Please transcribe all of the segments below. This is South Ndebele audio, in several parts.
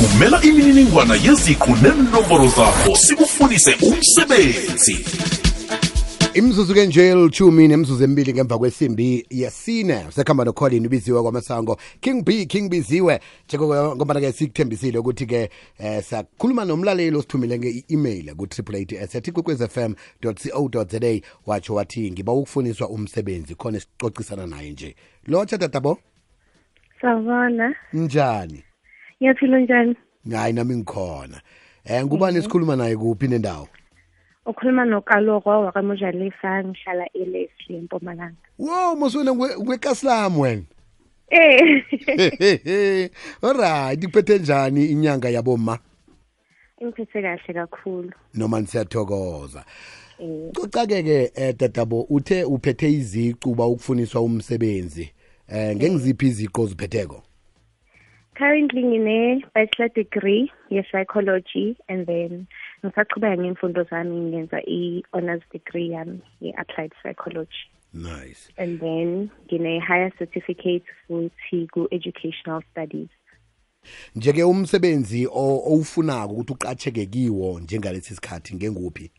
thumela imininingwana yeziqu nenomboro zakho sikufundise umsebenzi. Imzuzu kenje lichumi nemzuzu emibili ngemva kwesimbi yesine sekhamba noColin ubiziwe kwaMasango King Biziwe ngoba ke sikuthembisile ukuthi ke sakhuluma nomlaleli osithumile nge-email ku www.kwekwezfm.co.za watsho wathi ngiba ukufuniswa umsebenzi khona sicocisana naye nje. Lotsha tatabo? Sawubona. Njani? Ngiyaphila njani? Hayi nami ngikhona. Ngubani esikhuluma naye kuphi nendawo? Ukhuluma noKaloko wakaMojalisa ngihlala eLeslie eMpumalanga. Wow, moswena ngwekaslam wena. Alright, iphethe njani inyanga yaboma? Ingiphethe kahle kakhulu. Noma siyathokoza. Cocake tatabo uthe uphethe iziqu ba ukufuniswa umsebenzi. Ngengiziphi iziqu oziphetheko? Currently ngine bachelor degree ye psychology and then ngisaqhubeka ngemfundo zami ngenza i-honors degree yami ye-applied psychology. Nice. And then ngine higher certificate futhi ku-educational studies. Njeke umsebenzi owufunako ukuthi uqacheke kiwo njengalesi sikhathi ngenguphi?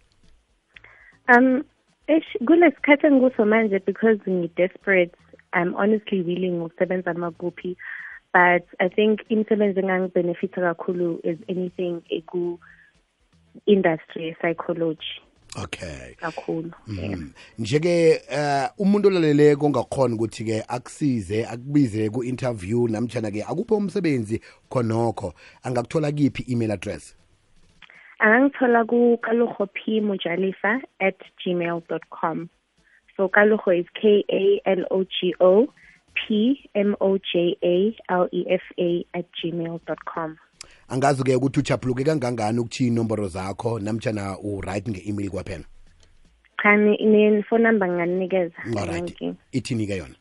Kulesikhathi engikuso manje because ngi-desperate, I'm honestly willing ukusebenza makuphi. But I think imisebenzi engangibenefita kakhulu is anything industry psychology. Okay. Kakhulu. Njeke umuntu olaleleko ongakhona ukuthi ke akusize akubize ku interview namtjana ke akupho umsebenzi khonokho angakuthola kiphi email address? Angangithola ku kalogopmojalifa@gmail.com. So Kalogo is KALOGOPMOJALEFA@gmail.com. Angazi ke ukuthi uchapuluke kangangani ukuthi inomboro zakho namtjana write nge-email kwaphela? Cha, ine phone number nganinikeza. Ithini ke yona?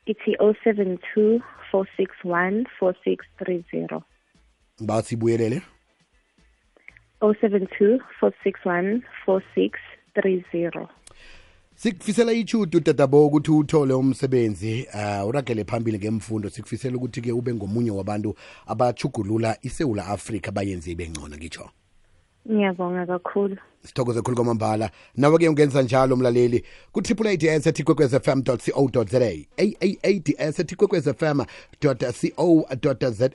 Ithi 072 461 4630. Basibuyelele. 072 461 4630. Sikufisela ichudu tatabo ukuthi uthole umsebenzi uragele phambili ngemfundo. Sikufisela ukuthi ke ube ngomunye wabantu abachugulula iSouth Africa bayenze ibengcono ngitsho. Ngiyabonga kakhulu. Sithokoze kakhulu kwamambala. Nawe ke ungenza njalo umlaleli ku AAADS@kwekwezfm.co.za AAADS@kwekwezfm.co.za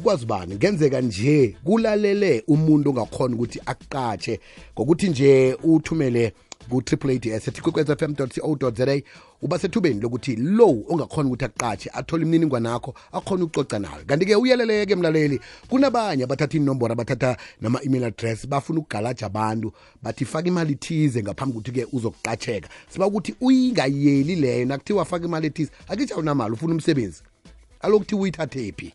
kwazi bani ngenzeka nje kulalele umuntu ongakhona ukuthi akuqatshe ngokuthi nje uthumele ku AAADS@kwekwezfm.co.za uba sethubeni lokuthi lo ongakhona ukuthi aqatshe athola imininingwane yakho akhona ukucoca nawe. Kanti ke uyeleleke mlaleli kunabanye abathatha inombolo abathatha nama email address bafuna ukugalaja abantu bathi faka imali thize ngaphambi ukuthi ke uzokuqatsheka. Siba ukuthi uyingayeli leyo nakuthiwa faka imali ethize akithi awunamali ufuna umsebenzi alokuthi uyithathe phi.